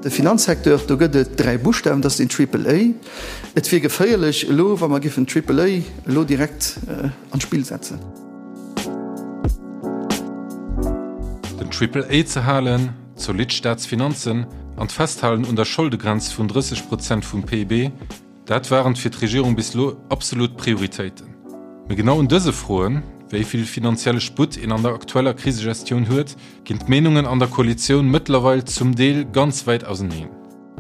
De Finanzsecteur, do gëtt et 3 Buschtawen, dat ass den Triple A. Et wier geféierlech elo, wa mer giffen Triple A elo direkt an d'Spill setzen. Den Triple A ze halen, zolidd Staatsfinanzen an d'Festhalen un der Scholdegrenz vun 30 Prozent vum PIB, Dat waren fir d'Regierung bis elo absolut Prioritéiten. Mee genau un dëse Froen, wéi vill finanzielle Sputt een an der aktueller Krisegestioun huet, ginn d'Meenungen an der Koalitioun mëttlerweil zum Deel ganz wäit auseneen.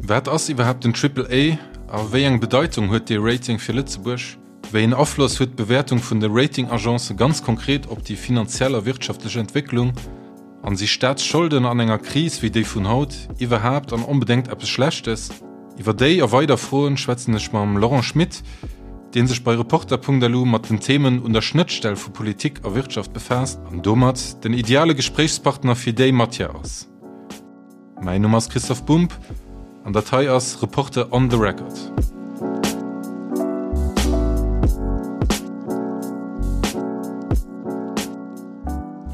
Wat ass iwwerhaapt den Triple A a wéi eng Bedeitung huet dee Rating fir Lëtzebuerg? Wéi een Afloss huet d'Bewäertung vun de Rating-Agencë ganz konkret op déi finanziell a wirtschaftlech Entwécklung? An si Staatsscholden an enger Kris wéi déi vun haut iwwerhaapt an onbedéngt eppes Schlechtes? Iwwer déi a weider Froen schwätzen ech mam Laurent Schmit, dee sech bei Reporter.lu mat den Themen un der Schnëttstell vu Politik a Wirtschaft befaasst an domat den ideale Gespréichspartner fir déi Matière ass. Mäin Numm ass Christoph Bumb an dat hei ass Reporter on the Record.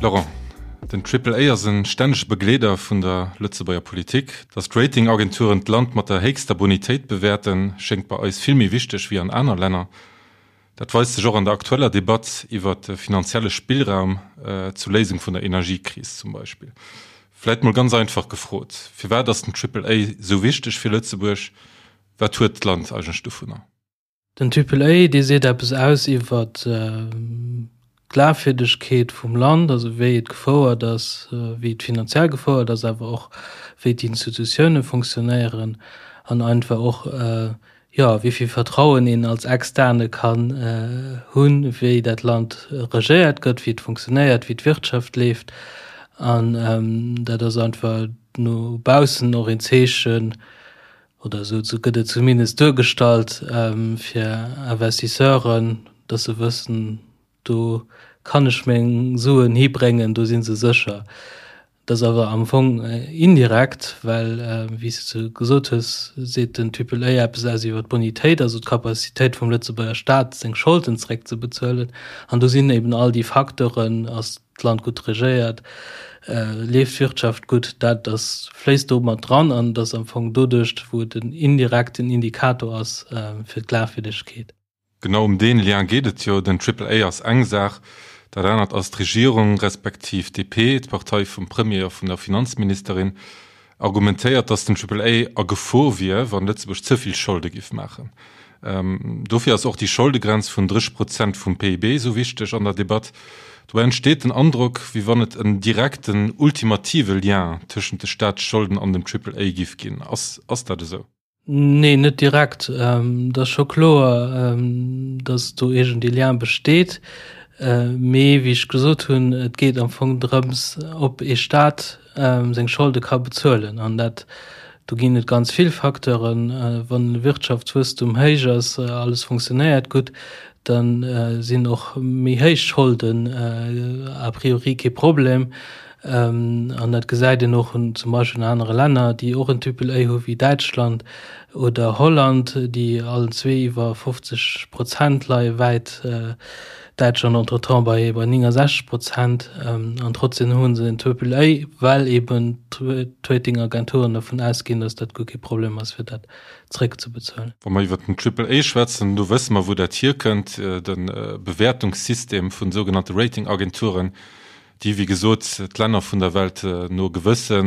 Laurent, den Triple A ass e stännege Begleeder vun der Lëtzebuerger Politik. Datt d'Ratingagenturen d'Land mat der héchster Bonitéit bewäerten, schéngt bei eis vill méi wichteg wéi an aner Länner. Dat weist sech och an der aktueller Debatt iwwer de finanzielle Spillraum zur Léisung vun der Energiekris zum Beispill. Vläit mol ganz einfach gefrot, Firwat ass den Triple A esou wichteg fir Lëtzebuerg? Wat huet d'Land eigentlech dovunner? Den Triple A, dee seet eppes aus iwwer d'Glafwierdegkeet vum Land, also wéi et gefouert ass, wéi et finanziell gefouert ass, awer och wéi d'Institutioune fonctionnéieren an einfach och jo, wéi vill Vertrauen een als Externe kann hunn, wéi dat Land regéiert gëtt, wéi et funktionéiert, wéi d'Wirtschaft leeft. An dat ass einfach no baussen och een Zeechen, oder esou gëtt et zumindest duergestallt, fir Investisseuren, dass se wëssen, do kann ech meng Suen hibréngen, do si se sécher. Dat ass awer am Fong indirekt, well, wéi s de gesot hues, seet den Triple A eppes aus iwwer d'Bonitéit, also d'Capacitéit vum Lëtzebuerger Staat, seng Scholden zeréckzebezuelen. An do sinn eben all déi Facteuren, ass d'Land gutt regéiert, leeft d'Wirtschaft gutt, dat ass, fléisst do mat dran an et ass am Fong doduerch, wou et en indirekten Indikator ass fir d'Glafwierdegkeet. Genau ëm deen Lien geet et jo. Den Triple A ass eng Saach, dat anert ass d'Regierung, respektiv d'DP, d'Partei vum Premier a vun der Finanzministerin, argumentéiert, datt den Triple A a Gefor wier, wann Lëtzebuerg ze vill Scholde giff maachen. Dofir ass och déi Scholdegrenz vun 30 Prozent vum PIB esou wichteg an der Debatt. Dobäi entsteet den Androck, wéi wann et en direkten, ultimative Lien tëschent de Staatsscholden an dem Triple A giff ginn. Ass dat esou? Nee, net direkt. Et ass scho kloer, datt do iergend ee Lien besteet. Mee wéi ech gesot hunn, et geet am Fong drëms, ob ee Staat seng Scholde ka bezuelen. An dat, do ginn et ganz vill Facteuren. Wann de Wirtschaftswuesstum héich ass, alles funktionéiert gutt, da sinn och méi héich Scholden a priori kee Problem. An dat gesäit een och zum Beispill an anere Länner, déi och en Triple A hu wéi Däitschland oder Holland, déi allen zwee iwwer 50 Prozent leie wäit, Däitschland entretemps bei 69 Prozent. An trotzdem hu se en Triple A, well eben d'Ratingagenturen dervun ausginn, datt dat guer kee Problem ass, fir dat zréckzebezuelen. Wa mer iwwer den Triple A schwätzen, do wësse mer, wou dat hierkënnt, de Bewäertungssystem vun sougenannte Ratingagenturen, déi wéi gesot d'Länner vun der Welt no gewësse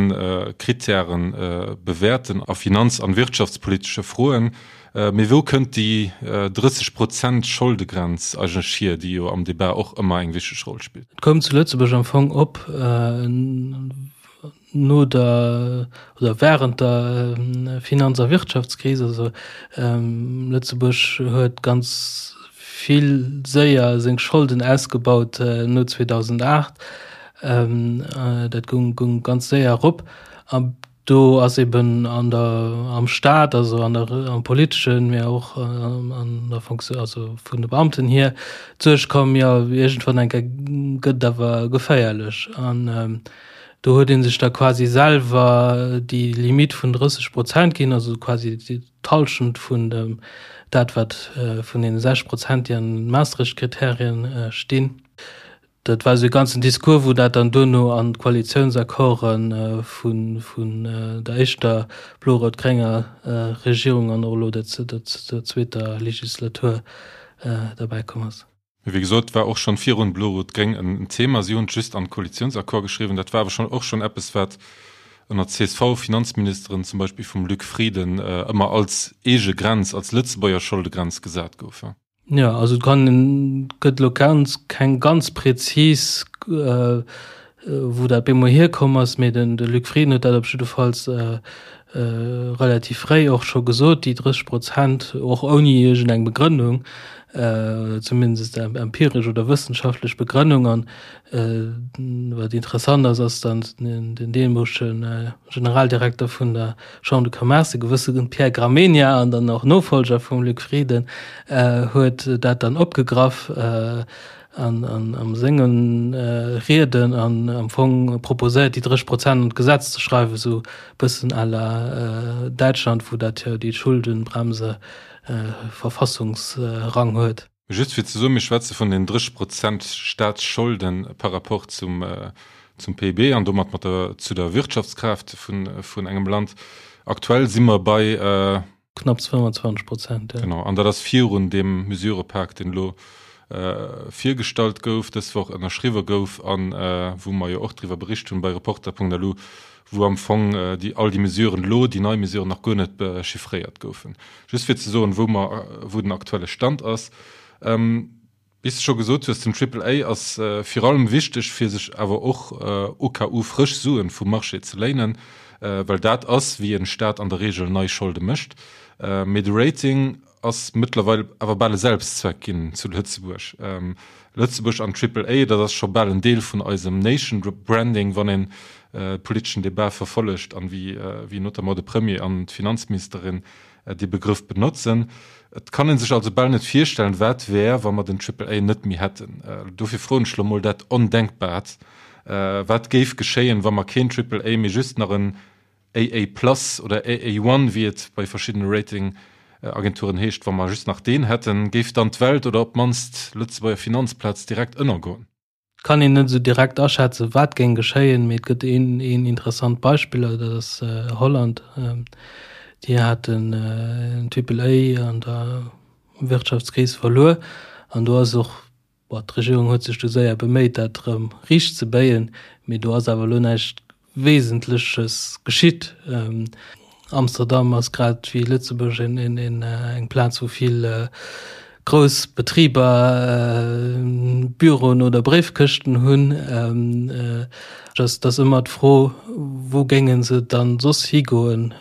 Krittäre bewäerten a finanz an wirtschaftspolitesche Froen. Mee wou kënnt déi 30 Prozent Scholdegrenz eigentlech hier, déi jo am Debat och ëmmer eng wichteg Roll spillt? Et koum zu Lëtzebuerg am Fong op no der oder während der Finanz a Wirtschaftskris. Also Lëtzebuerg huet ganz vill séier seng Scholden ausgebaut no 2008. Dat goung goung ganz séier erop. A do ass eben an der am Staat, also an der am politeschen, mä och an der Fonction, also vun de Beamten hier, d'Suerg komm, jo iergendwann eng Kéier gëtt et awer geféierlech. An Do huet ee sech da quasi selwer déi Limitt vun 30 Prozent ginn, also quasi d'Hallschent vun dem dat wat vun deene 60 Prozent, déi an den Maastricht-Kriterien stinn. Dat war esou e ganzen Discours, wou dat dann duerno an d'Koalitiounsaccorde vun der éischter blo-rout-grénger Regierung an och elo der zweeter Legislatur derbäi komm ass. Mee wéi gesot, war och schonn virun blo-rot-gréng en Thema. Si hunn et just an d'Koalitiounsaccord geschriwwen. Dat war awer schonn och schonn eppes, wat ënner CSV-Finanzministeren, zum Beispill vum Luc Frieden, ëmmer als eege Grenz, als Lëtzebuerger Scholdegrenz gesat gouf. Jo, also et kann een, gëtt elo ganz keng ganz prezis, wou dat bemol hierkomm ass, mee den de Luc Frieden huet dat op jiddefalls relativ fréi och scho gesot, déi 30 Prozent, och ouni iergend eng Begrënnung, oder zumindest empiresch oder wëssenschaftlech Begrënnung. An wat interessant ass, ass dann den deemolege Generaldirekter vun der Chambre de Commerce, e gewësse Pierre Gramegna an dann och Nofolger vum Luc Frieden, huet dat dann opgegraff an an senge Rieden an am Fong proposéiert, déi 30 Prozent an d'Gesetz ze schreiwen, esou e bëssen à la Däitschland, wou dat jo déi Schuldenbremse Verfassungsrang huet. Just fir ze soen, mir schwätze vun den 30 Prozent Staatsscholde par rapport zum zum PIB an domat mat der zu der Wirtschaftskraaft vun vun engem Land. Aktuell si mer bei. Knapps 25 Prozent, jo. Genau, an dat ass virun deem Mesurëpak, deen elo virgestallt gouf, dës Woch ënnerschriwwe gouf a wou mer jo och driwwer bericht hunn bei Reporter.lu, wou am Fong déi all déi Mesuren elo, déi nei Mesuren nach guer net chiffréiert goufen. Just fir ze soen, wou mer, wou den aktuelle Stand ass. Wéi s de scho gesot hues, den Triple A ass vir allem wichteg, fir sech awer och au cas où frësch Suen vum Marché ze léinen, well dat ass, wéi en Staat an der Reegel nei Scholde mécht. Mee de Rating ass mëttlerweil awer bal e Selbstzweck ginn zu Lëtzebuerg. Lëtzebuerg an Triple A, dat ass scho bal en Deel vun eisem Nation Branding, wann een politeschen Debat verfollegt an wéi notamment de Premier an d'Finanzministerin dee Begrëff benotzen. Et kann ee sech also bal net virstellen, wat wär, wa mer den Triple A net méi hätten. Dofir froen ech lo mol dat Ondenkbart, Wat géif geschéien, wa mer keen Triple A, mee just nach en AA plus oder AA one, wéi et bei verschiddene Ratingagenturen heescht, wa mer just nach deen hätten? Géif dann d'Welt oder op d'mannst d'Lëtzebuerger Finanzplaz direkt ënnergoen? Et kann een net esou direkt aschätzen, wat géing geschéien, mee et gëtt een, een interessant Beispill, dat ass Holland. Déi haten en Triple A an der Wirtschaftskris verluer an do ass och, bon, d'Regierung huet sech du séier beméit, dat erëm riicht ze béien, mee do ass awer elo näischt Wesentleches geschitt. Amsterdam ass grad wéi Lëtzebuerg eng Plaz, wou vill grouss Betriber Büroen oder Bréifkëschten hunn. Et ass ëmmer d'Fro, wou géinge se dann soss higoen,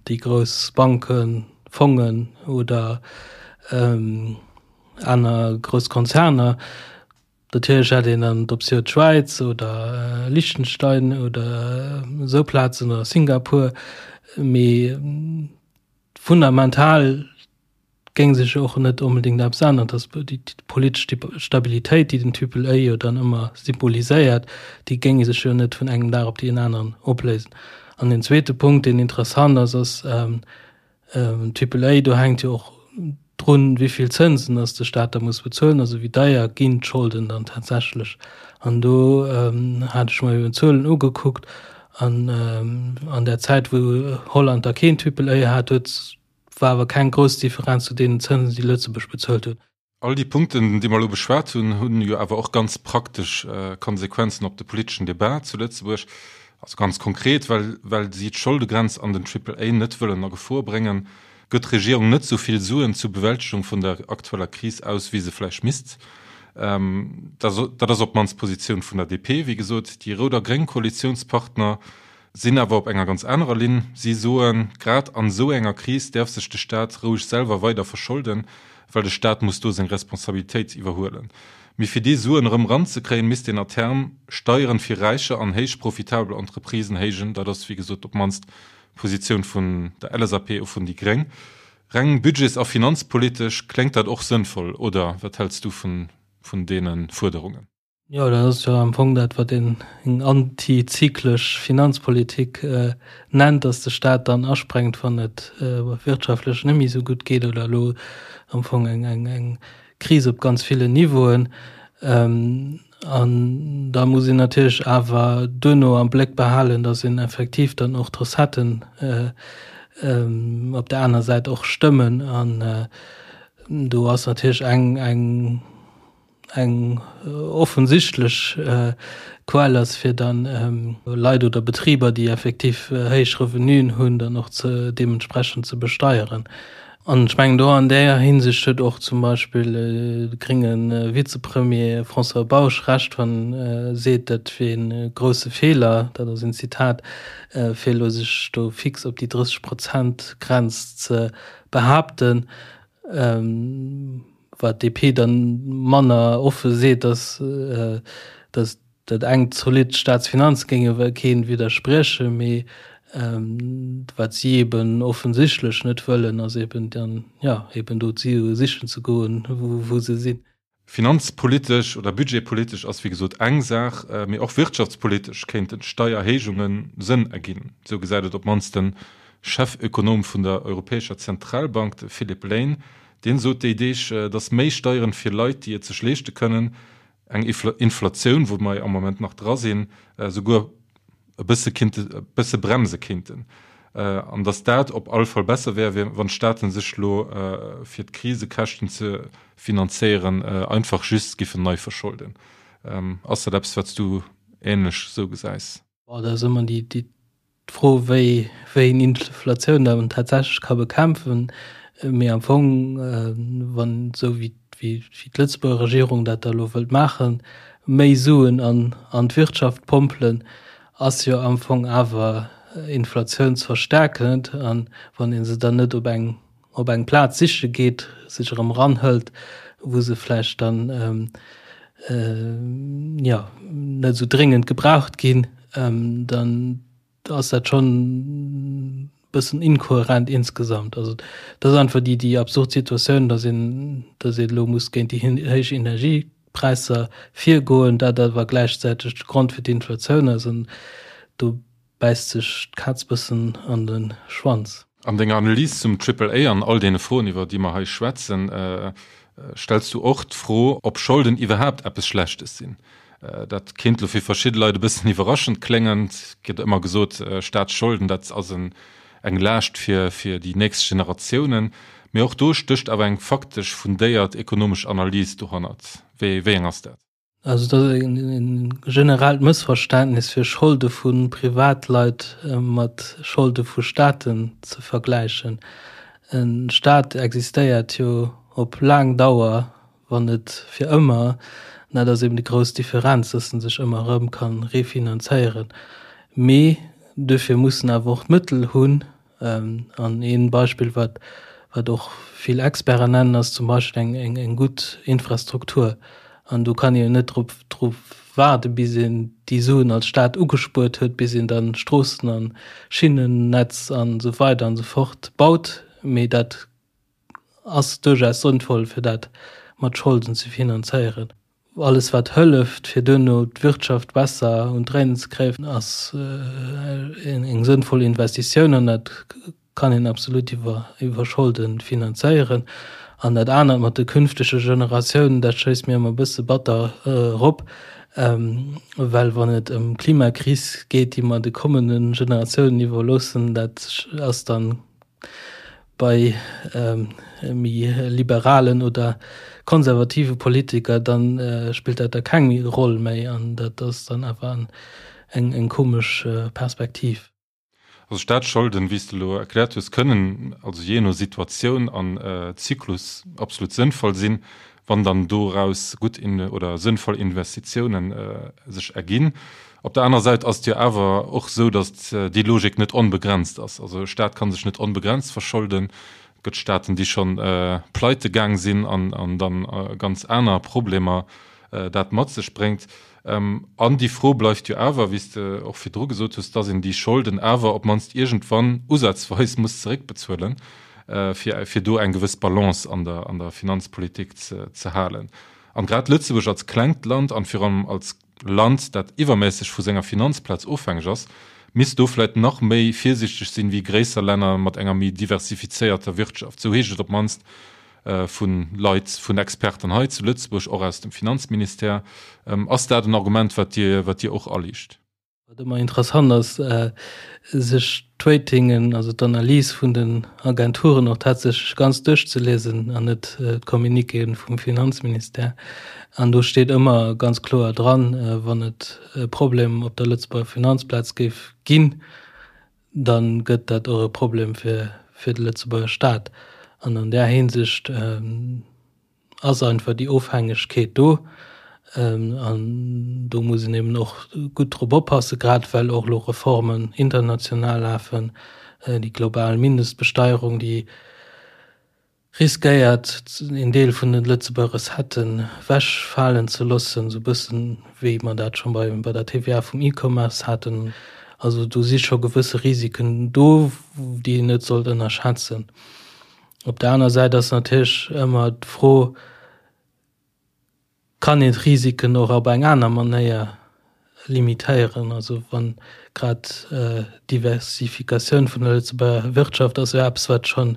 déi grouss Banken, Fongen oder aner grouss Konzerner. Natierlech hätt een dann d'Optioun d'Schwäiz oder Liechtenstein oder esou Plazen oder Singapur, mee fundamental géing sech och net onbedéngt eppes änneren. Dass déi politesch Stabilitéit, déi den Triple A jo dann ëmmer symboliséiert, déi géing sech jo net vun engem Dag op deen aneren opléisen. An den zweete Punkt, deen interessant ass, ass, Triple A, do hänkt jo och drun, wéi vill Zënsen dass de Staat da muss bezuelen, also wéi deier ginn d'Scholden dann tatsächlech. An do hat ech mer eben d'Zuelen ugekuckt an an där Zäit, wou Holland da keen Triple A hat, huet, war awer keng grouss Differenz zu deenen Zënsen, déi Lëtzebuerg bezuelt huet. All déi Punkten, déi mer elo beschwat hunn, hunn jo awer och ganz praktesch Konsequenzen op de politeschen Debat zu Lëtzebuerg. Also ganz konkret, well, well si d'Scholdegrenz an den Triple A net wëllen a Gefor bréngen, gëtt d'Regierung net esou vill Suen zur Bewältegung vun der aktueller Kris aus, wéi se vläicht misst. Dat ass op d'mannst d'Positioun vun der DP. Wéi gesot, déi rout a gréng Koalitiounspartner sinn awer op enger ganz anerer Linn. Si soen, grad an esou enger Kris däerf sech de Staat roueg selwer weider verscholden, well de Staat muss do seng Responsabilitéit iwwerhuelen. Mee fir déi Suen erëm eranzekréien, misst een à terme Steieren fir Räicher an héich profitabel Entreprisen héijen. Dat ass, wéi gesot, op d'mannst d'Positioun vun der LSAP a vun déi gréng. Reng budgets a finanzpolitesch kléngt dat och sënnvoll, oder wat häls du vun deene Fuerderungen? Jo, dat ass jo am Fong dat, wat een eng antizyklesch Finanzpolitik nennt, dass de Staat dann asprengt, wann et wirtschaftlech net méi esou gutt geet oder elo am Fong eng Kris op ganz villen Niveauen. An da muss een natierlech awer duerno am Bléck behalen, datt een effektiv dann och d'Recetten op där aner Säit och stëmmen. An do ass natierlech eng, eng, eng offensichtlech Quell ass, fir dann Leit oder Betriber, déi effektiv héich Revenuen hunn, dann och ze deementsprechend ze besteieren. An ech mengen, do an där Hinsicht huet och zum Beispill de grénge Vizepremier François Bausch Recht, wann e seet, dat wier ee grousse Feeler, dat ass een Zitat, fir elo sech do fix op déi 30 Prozent Grenz ze behaapten. Wat d'DP dann manner offe seet, ass, datt dat eng zolidd Staatsfinanze géinge keen widderspriechen, mee wat si eben offensichtlech net wëllen, ass eben dann, jo, eben do d'Sue sichen ze goen, wou se sinn. Finanzpolitesch oder budgetpolitesch ass wéi gesot eng Saach, mee och wirtschaftspolitesch kéinten Steierhéijunge Sënn erginn. Esou gesäit et op d'mannst de Chefökonom vun der Europäescher Zentralbank, de Philip Lane. Deen sot déi Deeg, datt méi Steieren fir Leit, déi et sech leeschte kënnen, eng Inflatioun, wou mer am Moment nach dra sinn, souguer e bësse kinnte, e bësse bremse kinnten. An datt dat op alle Fall besser wär, wéi wann d'Staaten sech elo, fir d'Krisekäschten ze finanzéieren, einfach just giffen nei verscholden. Ass dat eppes, wat s du ähnlech esou gesäis? Bon, dat ass ëmmer déi, déi D'Fro, wéi wéi een Inflatioun dann tatsächlech ka bekämpfen, mee am Fong, wann esou wéi wéi d'Lëtzebuerger Regierung dat da elo wëllt maachen, méi Suen an an d'Wirtschaft pompelen, ass jo am Fong awer inflatiounsverstärkend. An wann ee se dann net op eng op eng Plaz siche geet, sech erëm eranhëlt, wou se vläicht dann jo net esou dréngend gebraucht ginn, dann ass dat schonn e bëssen inkohärent insgesamt. Also dat ass einfach déi déi absurd Situatioun, datt een datt een elo muss géint déi héich Energiepräisser virgoen, dat awer gläichzäiteg de Grond fir d'Inflatioun ass. An do bäisst sech d'Kaz bëssen an de Schwanz. An denger Analys zum Triple A an all deene Froen, iwwer déi mer hei schwätzen, stells du och d'Fro, ob Scholden iwwerhaapt eppes Schlechtes sinn. Dat kéint elo fir verschidde Leit e bëssen iwwerraschend kléngen. Et gëtt ëmmer gesot, Staatsscholden, dat ass eng Laascht fir déi nächst Generatiounen. Mee och do stécht awer eng faktesch fundéiert ekonomesch Analys dohannert. Wéi eng ass dat? Also dat ass e generellt Mëssverständnis fir Scholde vu Privatleit mat Scholde vu Staaten ze vergläichen. E Staat existéiert jo op laang Dauer, wann net fir ëmmer. An dat ass eben déi grouss Differenz, datt en sech ëmmer erëm ka refinanzéieren. Mee duerfir muss en awer och d'Mëttel hunn, An ee Beispill, wat, wat och vill Experten nennen, ass zum Beispill eng, eng, eng gutt Infrastruktur. An do kann een jo net drop, drop waarde bis een déi Suen als Staat ugespuert huet, bis een dann Stroossen an Schinnennetz an esou weider an esou fort baut. Mee dat ass duerchaus sënnvoll, fir dat mat Scholden ze finanzéieren. Alles wat hëlleft, fir duerno d'Wirtschaft besser un d'Dréinen ze kréien, ass eng sënnvoll Investitioun an dat kann een absolut iwwer Scholde finanzéieren. An dat anert mat de künftege Generatiounen, dat schéisst mir ëmmer e bësse batter erop, well wann et ëm d'Klimakris geet, déi mer de kommende Generatiounen iwwerloossen, dat ass dann bei méi liberalen oder konservative Politiker, dann spillt dat da keng Roll méi an dat ass dann awer eng eng komesch Perspektiv. Also Staatsscholden, wéi s de elo erkläert hues, kënnen also jee no Situatioun an Zyklus absolut sënnvoll sinn, wann dann doraus gutt oder sënnvoll Investitiounen sech erginn. Op der anerer Säit ass et jo awer och esou, datt déi Logik net onbegrenzt ass. Also e Staat ka sech net onbegrenzt verscholden. Et gëtt Staaten, déi scho pleite gaang sinn an dann ganz aner Problemer dat mat sech bréngt. An déi Fro bleift jo awer, wéi s de och virdru gesot hues, datt een déi Scholden awer op d'mannst iergendwann usazweis muss zeréckbezuelen, fir fir do eng gewëss Balance an der an der Finanzpolitik ze ze halen. An grad Lëtzebuerg als klengt Land an virun allem als Land, dat iwwerméisseg vu senger Finanzplaz ofhängeg ass, misst do vläit nach méi virsiichteg sinn wéi gréisser Länner mat enger méi diversifizéierter Wirtschaft. Sou heescht et op d'mannst. Vu Leit, vun Experten hei zu Lëtzebuerg, och aus dem Finanzministère. Ass dat en Argument, wat Dir, wat Dir och aliicht? Wat ëmmer interessant ass, sech d'Ratingen, also d'Analys vun den Agenturen och tatsächlech ganz duerchzeliesen an net d'Communiquéen vum Finanzministère. An do steet ëmmer ganz kloer dran, wann et e Problem op der Lëtzebuerger Finanzplaz géif ginn, da gëtt dat och e Problem fir fir de Lëtzebuerger Staat. An an där Hinsicht ass einfach déi Ofhängegkeet do. An do muss een eben och gutt drop oppassen, grad well och elo Reformen international lafen, déi global Mindestbesteierung, déi riskéiert een Deel vun den Lëtzebuerger Recetten wechfalen ze loossen, esou e bëssen wéi mer dat scho bei bei der TVA vum E-Commerce haten. Also do si scho gewësse Risiken do, déi een net sollt ënnerschätzen. Op der aner Säit ass natierlech ëmmer d'Fro, Kann een d'Risiken och op eng aner Manéier limitéieren? Also wann grad d'Diversifikatioun vun der Lëtzebuerger Wirtschaft ass jo eppes, wat scho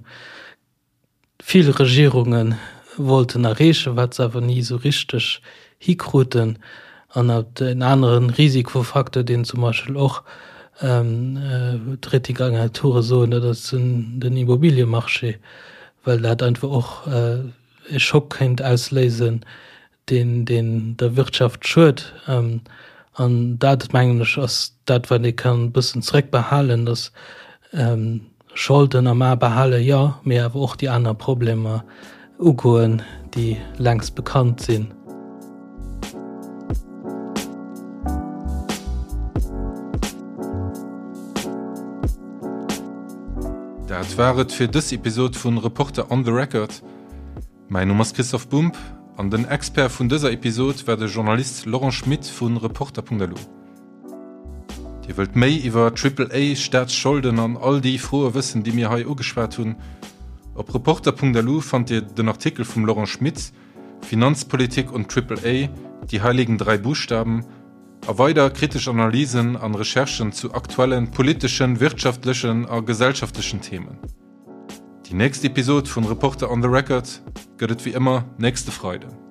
vill Regierunge wollten erreechen, wat se awer ni esou richteg hikruten. An en anere Risikofacteur, deen zum Beispill och d'Ratingagenture soen, dat ass den Immobiliemarché, well dat einfach och e Schock kéint ausléisen, deen deen der Wirtschaft schued. An dat, mengen ech, ass dat, wat ee kann e bëssen zrëckbehalen, dass Scholden am A behalen, jo, mee awer och déi aner Problemer ugoen, déi längst bekannt sinn. Dat war et fir dës Episod vun Reporter on the Record. Mäin Numm ass Christoph Bumb an den Expert vun dëser Episod war de Journalist Laurent Schmit vu Reporter.lu. Dir wëllt méi iwwer Triple A, Staatsscholden an all déi Froe wëssen, déi mir hei ugeschwat hunn? Op Reporter.lu fannt Dir den Artikel vum Laurent Schmit Finanzpolitik und Triple A, die heiligen drei Buchstaben a weider kritesch Analysen an Recherchen zu aktuellen politeschen, wirtschaftlechen a gesellschaftlechen Themen. Déi nächst Episod vun Reporter on the Record gëtt et wéi ëmmer nächste Freiden.